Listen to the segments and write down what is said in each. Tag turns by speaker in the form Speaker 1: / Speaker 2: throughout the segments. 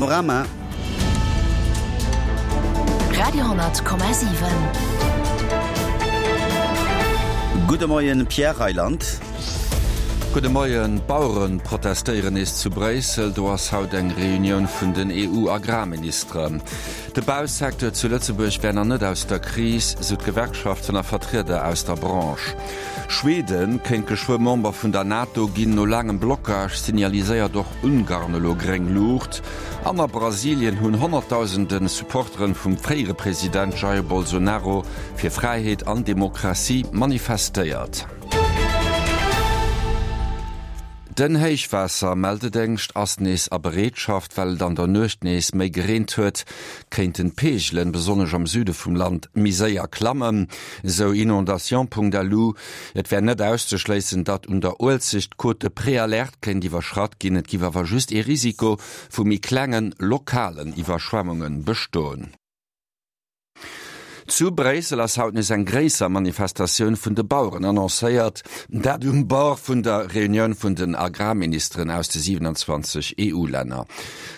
Speaker 1: Panorama.
Speaker 2: Radio,7.
Speaker 1: Gudde Moien, Pierre Reyland.
Speaker 3: Gudde Moien. D'Bauere protestéieren nees zu Bréissel. Do ass haut eng Reunioun vun den EU-Agrarministeren. De Bausecteur zu Lëtzebuerg wär nach net aus der Kris, sou d'Gewerkschaften a Vertrieder aus der Branche. Schweden kéint geschwë Member vun der NATO ginn. No laangem Blockage signaliséiert och Ungarn elo gréng Luucht. An a Brasilien hunn Honnertdausende Supporteren vum fréiere President Jair Bolsonaro fir Fräiheet an Demokratie manifestéiert. Den Héichwaassermeldedéngscht ass nees a Bereetschaft. Well et an der Nuecht nees méi gereent huet, kéinten d'Peegelen, besonnesch am Süde vum Land, méi séier klammen, esou Inondation.lu. Et wär net auszeschléissen, datt un der Uelzecht d'Cote de Préalerte kéint iwwerschratt ginn. Et giff awer just ee Risiko vu méi klengen, lokalen Iwwerschwemmunge bestoen. Zu Bréissel ass haut nees eng gréisser Manifestatioun vun de Baueren annoncéiert, dat um Bord vun der Reunioun vun den Agrarministeren aus de 27 EU-Länner.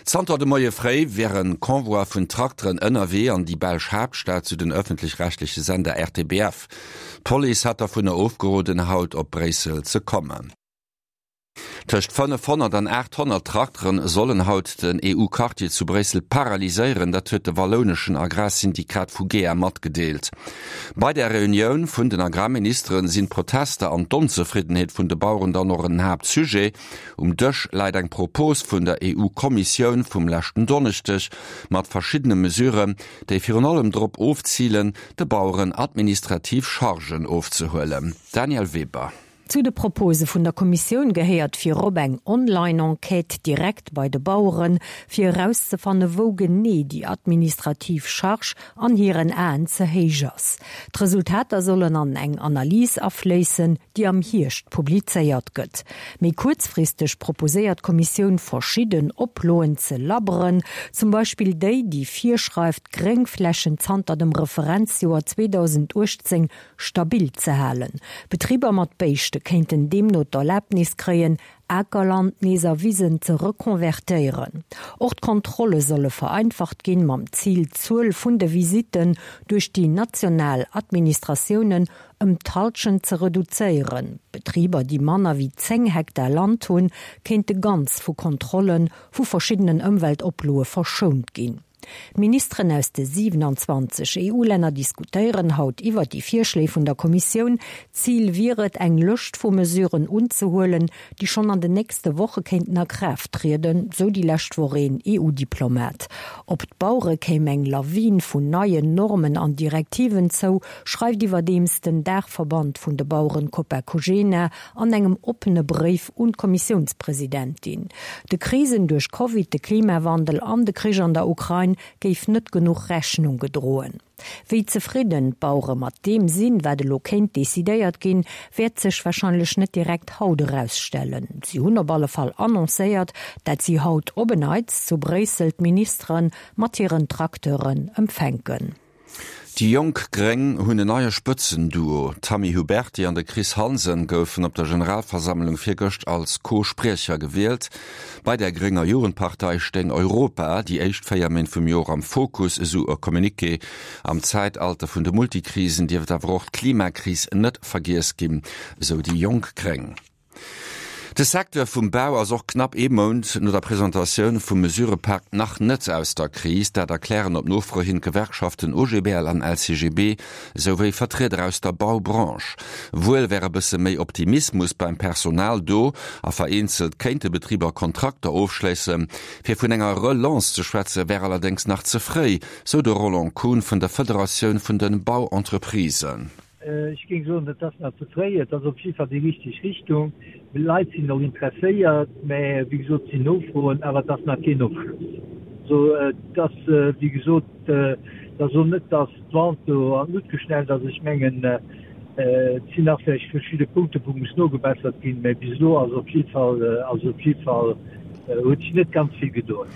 Speaker 3: Zanter de Moie fréi wär e Convoi vun Trakteren ënnerwee an déi belsch Haaptstad, sou den ëffentlech-rechtleche Sender RTBF. D'Police hat dervunner ofgeroden, haut op Bréissel ze kommen. Tëscht 500 an 800 Trakteren sollen haut den EU-Quartier zu Bréissel paralyséieren, dat huet de wallouneschen Agrarsyndikat Fugea matgedeelt. Bei der Reunioun vun den Agrarministeren sinn d'Protester an d'Onzefriddenheet vun de Baueren dann och en Haaptsujet. Um Dësch läit eng Propos vun der EU-Kommissioun vum leschten Donneschdeg mat verschiddene Mesuren, déi virun allem drop ofzilen, de Baueren administrativ Chargen ofzehuelen. Danièle Weber.
Speaker 4: Zu de Propose vun der Kommissioun gehéiert virop eng Online-Enquête direkt bei de Baueren, fir erauszefanne wou genee déi administrativ Charge an hiren Aen ze héich ass. D'Resultater sollen an eng Analys afléissen, déi am Hierscht publizéiert gëtt. Méi kuerzfristeg proposéiert d'Kommissioun verschidden Oploen ze labberen, zum Beispill déi, déi virschreift, d'Gréngflächen zanter dem Referenzjoer 2018 stabil ze halen. Betriber mat Béischte kéinten deemno d'Erlaabnis kréien, Akerland nees a Wisen ze rekonvertéieren. Och d'Kontrolle solle vereinfacht ginn, mam Zil d'Zuel vun de Visitten duerch déi national Administratiounen ëm d'Hallschent ze reduzéieren. Betriber, déi manner wéi 10 Hektar Land hunn, kéinte ganz vu Kontrolle vu verschiddenen Ëmweltoploe verschount ginn. D'Ministeren aus de 27 EU-Länner diskutéieren haut iwwer déi Virschléi vun der Kommissioun. Zil wier et, eng Lëscht vu Mesuren unzehuelen, déi schonn an den nächste Woche kéinten a Kraaft trieden, sou déi lescht Woch een EU-Diplomat. Op d'Bauere kéim eng Lawin vun neien Normen an Direktiven zou, schreift iwwerdeems den Daachverband vun de Baueren Copa-Cogena an engem oppene Bréif un d'Kommissiounspresidentin. De Krisen duerch Covid, de Klimawandel an de Krich an der Ukrain géif net genuch Rechnung gedroen. Wéi zefridden d'Bauere mat deem sinn, wat elo kéint decidéiert ginn, wäert sech warscheinlech net direkt haut erausstellen. Si hunn op alle Fall annoncéiert, dat si haut op en Neits zu Bréissel d'Ministere mat hiren Tracteuren empfänken.
Speaker 3: Déi jonk Gréng hunn en neie Spëtzenduo. D'Tammy Huberty an de Chris Hansen goufen op der Generalversammlung virgëscht als Co-Spriecher gewielt. Bei der grénger Jugendpartei stéing Europa déi éischt 4 Méint vum Joer am Fokus, esou e Communiqué. Am Zäitalter vun de Multikrisen dierft awer och d'Klimakris net vergiess ginn, esou déi jonk Gréng. De Secteur vum Bau ass och knapp ee Mount no der Presentatioun vum Mesurëpak nach net aus der Kris. Dat erklären op Nofro hin d'Gewerkschaften OGBL an LCGB, esou wéi Vertrieder aus der Baubranche. Wuel wär e bësse méi Optimismus beim Personal do a vereenzelt kéinte Betriber Kontrakter ofschléissen. Fir vun enger Relance ze schwätze wär allerdéngs nach ze fréi, sou de Roland Kuhn vun der Federatioun vun de Bauentreprisen.
Speaker 5: Ech géing soen, et ass nach ze fréi. Et ass op jidde Fall déi richteg Richtung. D'Leit sinn och interesséiert, mä wéi gesot, et sinn Nofroen, awer et ass nach keen Ofschloss. Also et ass, wéi gesot, et ass och net, datt d'Vente do an d'Luucht geschnellt ass. Ech mengen, et sinn nach vläicht verschidde Punkte wou muss nogebessert ginn, mä bis elo ass op jidde Fall, ass op jidde Fall, huet sech net ganz vill gedoen.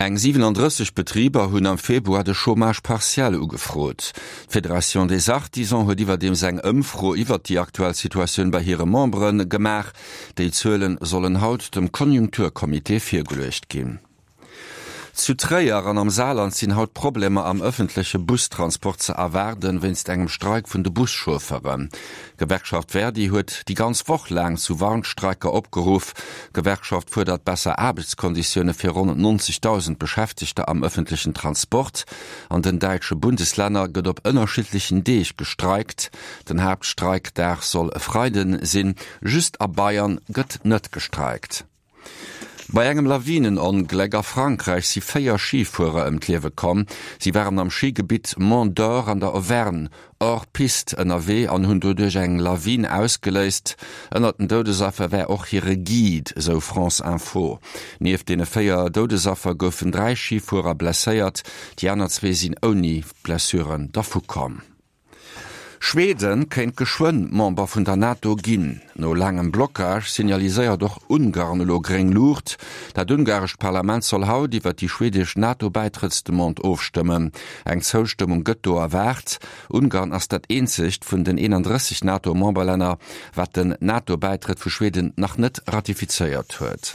Speaker 3: Eng 37 Betriber hunn am Februar de Chômage partiel ugefrot. D'Fédération des Artisans huet iwwerdeems eng Ëmfro iwwert déi aktuell Situatioun bei hire Membere gemaach. Déi Zuele sollen haut dem Konjunkturcomité virgeluecht ginn. Zu Tréier an am Saarland sinn haut Problemer am ëffentleche Bustransport ze erwaarden, wéinst engem Streik vun de Buschaufferen. D'Gewerkschaft Verdi huet déi ganz Woch laang zu Warnstreiker opgeruff. D'Gewerkschaft fuerdert besser Aarbechtskonditioune fir ronn 90.000 Beschäftegter am ëffentlechen Transport. An den däitsche Bundeslänner gëtt op ënnerschiddlechen Deeg gestreikt. Den Haaptstreikdag soll e Freiden sinn. Just a Bayern gëtt net gestreikt. Bei engem Lawinenongléck a Frankräich si 4 Schifuerer ëm d'Liewe komm. Si waren am Schigebitt Mont Dore an der Auvergne hors piste ënnerwee an hunn doduerch eng Lawin ausgeléist. Ënnert den Doudesaffer wär och hire Guide, esou France Info. Nieft deene 4 Doudesaffer goufen 3 Schifuerer blesséiert, déi aner zwee sinn ouni Blessuren dervukomm. Schweden kéint geschwënn Member vun der NATO ginn. No laangem Blockage signaliséiert och Ungarn elo gréng Luucht. Dat ungarescht Parlament soll haut iwwer déi schwedesch NATO-Bäitrëttsdemande ofstëmmen. Eng Zoustëmmung gëtt do erwaart. Ungarn ass dat eenzegt vun den 31 NATO-Memberlänner, wat den NATO-Bäitrëtt vu Schweden nach net ratifizéiert huet.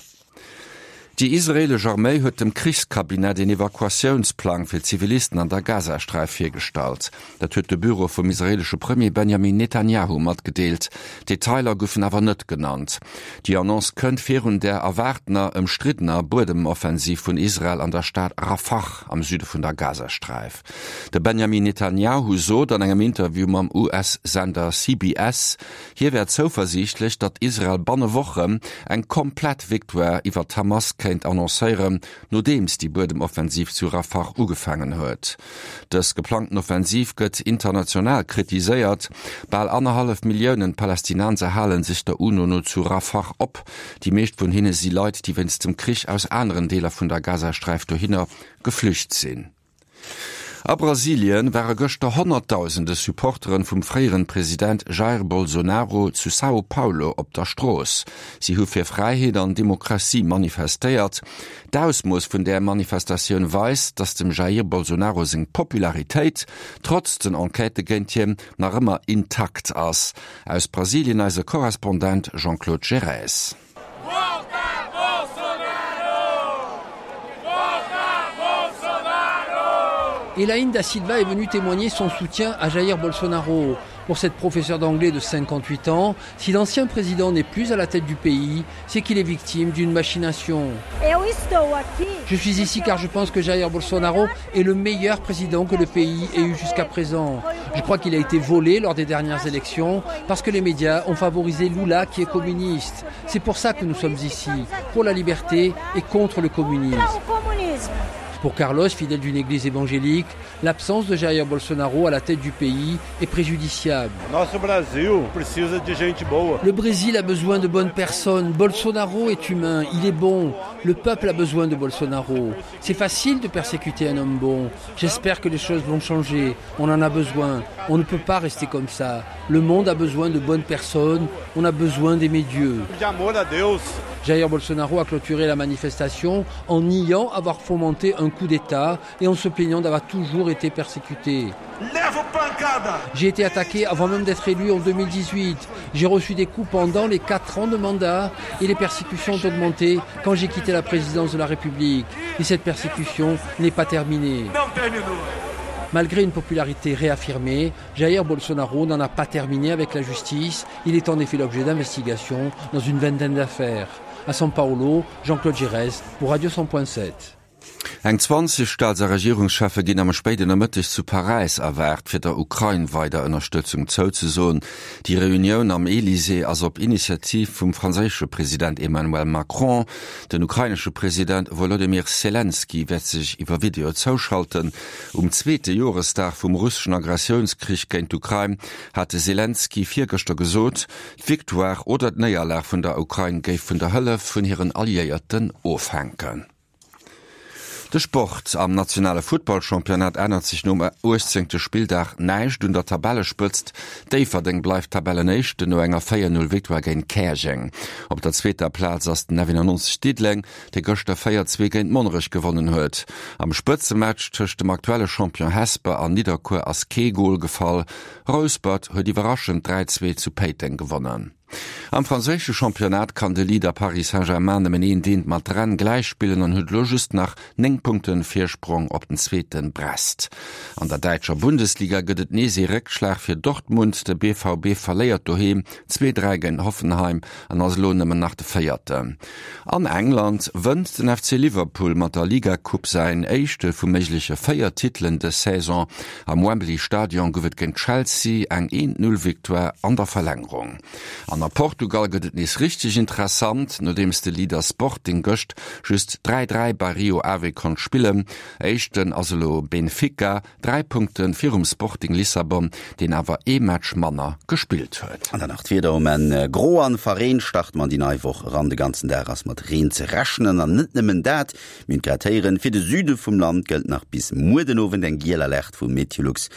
Speaker 3: Déi israeelesch Arméi huet dem Krichskabinett een Evakuatiounsplang fir Zivilisten an der Gazasträif virgestallt. Dat huet de Büro vum israeelesche Premier Benjamin Netanjahu matgedeelt. Detailer goufen awer net genannt. Déi Annonce kënnt virun der erwaartener ëmstriddener Buedemoffensiv vun Israel an der Stad Rafah am Süde vun der Gazasträif. De Benjamin Netanjahu sot an engem Interview mam US-Sender CBS, Hie wär zouversiichtlech, datt Israel banne Wochen eng komplett Victoire iwwer d'Hamas kéint annoncéieren, nodeems déi Buedemoffensiv zu Rafah ugefaangen huet. Dës geplangten Offensiv gëtt international kritiséiert. Bal annerhallef Milliounen Palästinenser hale sech der UNO no zu Rafah op. Déi meescht vun hinne si Leit, déi wéinst dem Krich aus aneren Deeler vun der Gazasträif dohinner geflücht sinn. A Brasilien ware gëschter Honnertdausende Supporteren vum fréieren President Jair Bolsonaro zu Sao Paulo op der Strooss. Si hu fir Fräiheet an Demokratie manifestéiert. D'Ausmooss vun där Manifestatioun weist, datt dem Jair Bolsonaro seng Popularitéit, trotz den Enquêtë géint hien, nach ëmmer intakt ass. Aus Brasilien eise Korrespondent Jean-Claude Gerez.
Speaker 6: Elaine da Silva est venue témoigner son soutien à Jair Bolsonaro. Pour cette professeure d'anglais de 58 ans, si l'ancien président n'est plus à la tête du pays, c'est qu'il est victime d'une machination. Je suis ici car je pense que Jair Bolsonaro est le meilleur président que le pays ait eu jusqu'à présent. Je crois qu'il a été volé lors des dernières élections parce que les médias ont favorisé Lula qui est communiste. C'est pour ça que nous sommes ici, pour la liberté et contre le communisme. Pour Carlos, fidèle d'une église évangélique, l'absence de Jair Bolsonaro à la tête du pays est préjudiciable. Le Brésil a besoin de bonnes personnes. Bolsonaro est humain, il est bon. Le peuple a besoin de Bolsonaro. C'est facile de persécuter un homme bon. J'espère que les choses vont changer. On en a besoin. On ne peut pas rester comme ça. Le monde a besoin de bonnes personnes. On a besoin d'aimer Dieu. Jair Bolsonaro a clôturé la manifestation en niant avoir fomenté un coup d'État et en se plaignant d'avoir toujours été persécuté. J'ai été attaqué avant même d'être élu en 2018. J'ai reçu des coups pendant les quatre ans de mandat et les persécutions ont augmenté quand j'ai quitté la présidence de la République. Et cette persécution n'est pas terminée. Malgré une popularité réaffirmée, Jair Bolsonaro n'en a pas terminé avec la justice. Il est en effet l'objet d'investigations dans une vingtaine d'affaires. À São Paulo, Jean-Claude Gérès pour Radio 100.7.
Speaker 3: Eng 20 Staats a Regierungscheffe ginn am spéiden Nomëtteg zu Paräis erwaart, fir der Ukrain weider Ënnerstëtzung zouzesoen. Déi Reunioun am Elysée ass op Initiativ vum franséische President Emmanuel Macron. Den ukrainesche President Wolodymyr Selenskyj wäert sech iwwer Video zouschalten. Um zweete Joresdag vum russeschen Agressiounskrich géint d'Ukrain hat de Selenskyj virgëschter gesot, d'Victoire oder d'Néierlag vun der Ukrain géif vun der Hëllef vun hiren Alliéierten ofhänken. De Sport, Am nationale Futtballchampionnat ännert sech nom 18. Spilldag näischt un der Tabellespëtzt. Déifferdeng bleift Tabellenéischten no enger 4, 0 Victoire géint Käerjeng. Op der zweeter Plaz ass den F91 Diddeleng, dee gëschter 4, 2 géint Monnerech gewonnen huet. Am Spëtzematch tëscht dem aktuelle Champion Hesper an Nidderkuer ass kee Gol gefall. Rouspert huet iwwerraschend 3, 2 zu Péiteng gewonnen. Am franséische Championnat kann de Leader Paris Saint-Germain nëmmen een Deent mat Rennes gläichspillen an huet elo just nach 9 Punkte Virsprong op den zweete Brest. An der däitscher Bundesliga gëtt et nees ee Réckschlag fir Dortmund. De BVB verléiert doheem 2, 3 géint Hoffenheim an ass elo nëmmen nach de Véierten. An England wënnt den FC Liverpool mat der Liga-Coupe säin éischte vu méigleche 4 Titelen dës Saison. Am Wembley Stadion gouf et géint Chelsea eng Eent-Null-Victoire an der Verlängerung. An a Portugal gëtt et nees richteg interessant, nodeems de Leader Sporting gëscht just 3, 3 bei Rio Ave konnt spillen. Éischten ass elo Benfica, 3 Punkte virum Sporting Lissabon, deen awer ee Match manner gespillt huet.
Speaker 1: An dann nach d'Wieder um Enn, Gro an verreent starte mer an déi nei Woch eran. De ganzen Dag ass mat Reen ze rechnen an net nëmmen dat, mir hunn grad héieren, fir de Süde vum Land gëllt nach bis muer den Owend eng giel Alerte vu Meteolux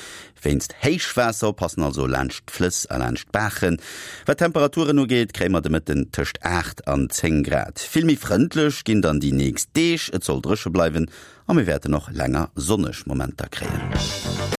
Speaker 1: wéinst Héichwaasser. Oppassen also laanscht d'Flëss a laanscht d'Baachen. Wat d'Temperaturen ugeet, kréie mer de Mëtten tëscht 8 an 10 Grad. Vill méi frëndlech ginn dann déi nächst Deeg, et soll dréche bleiwen a mir wäerten och länger sonneg Momenter kréien.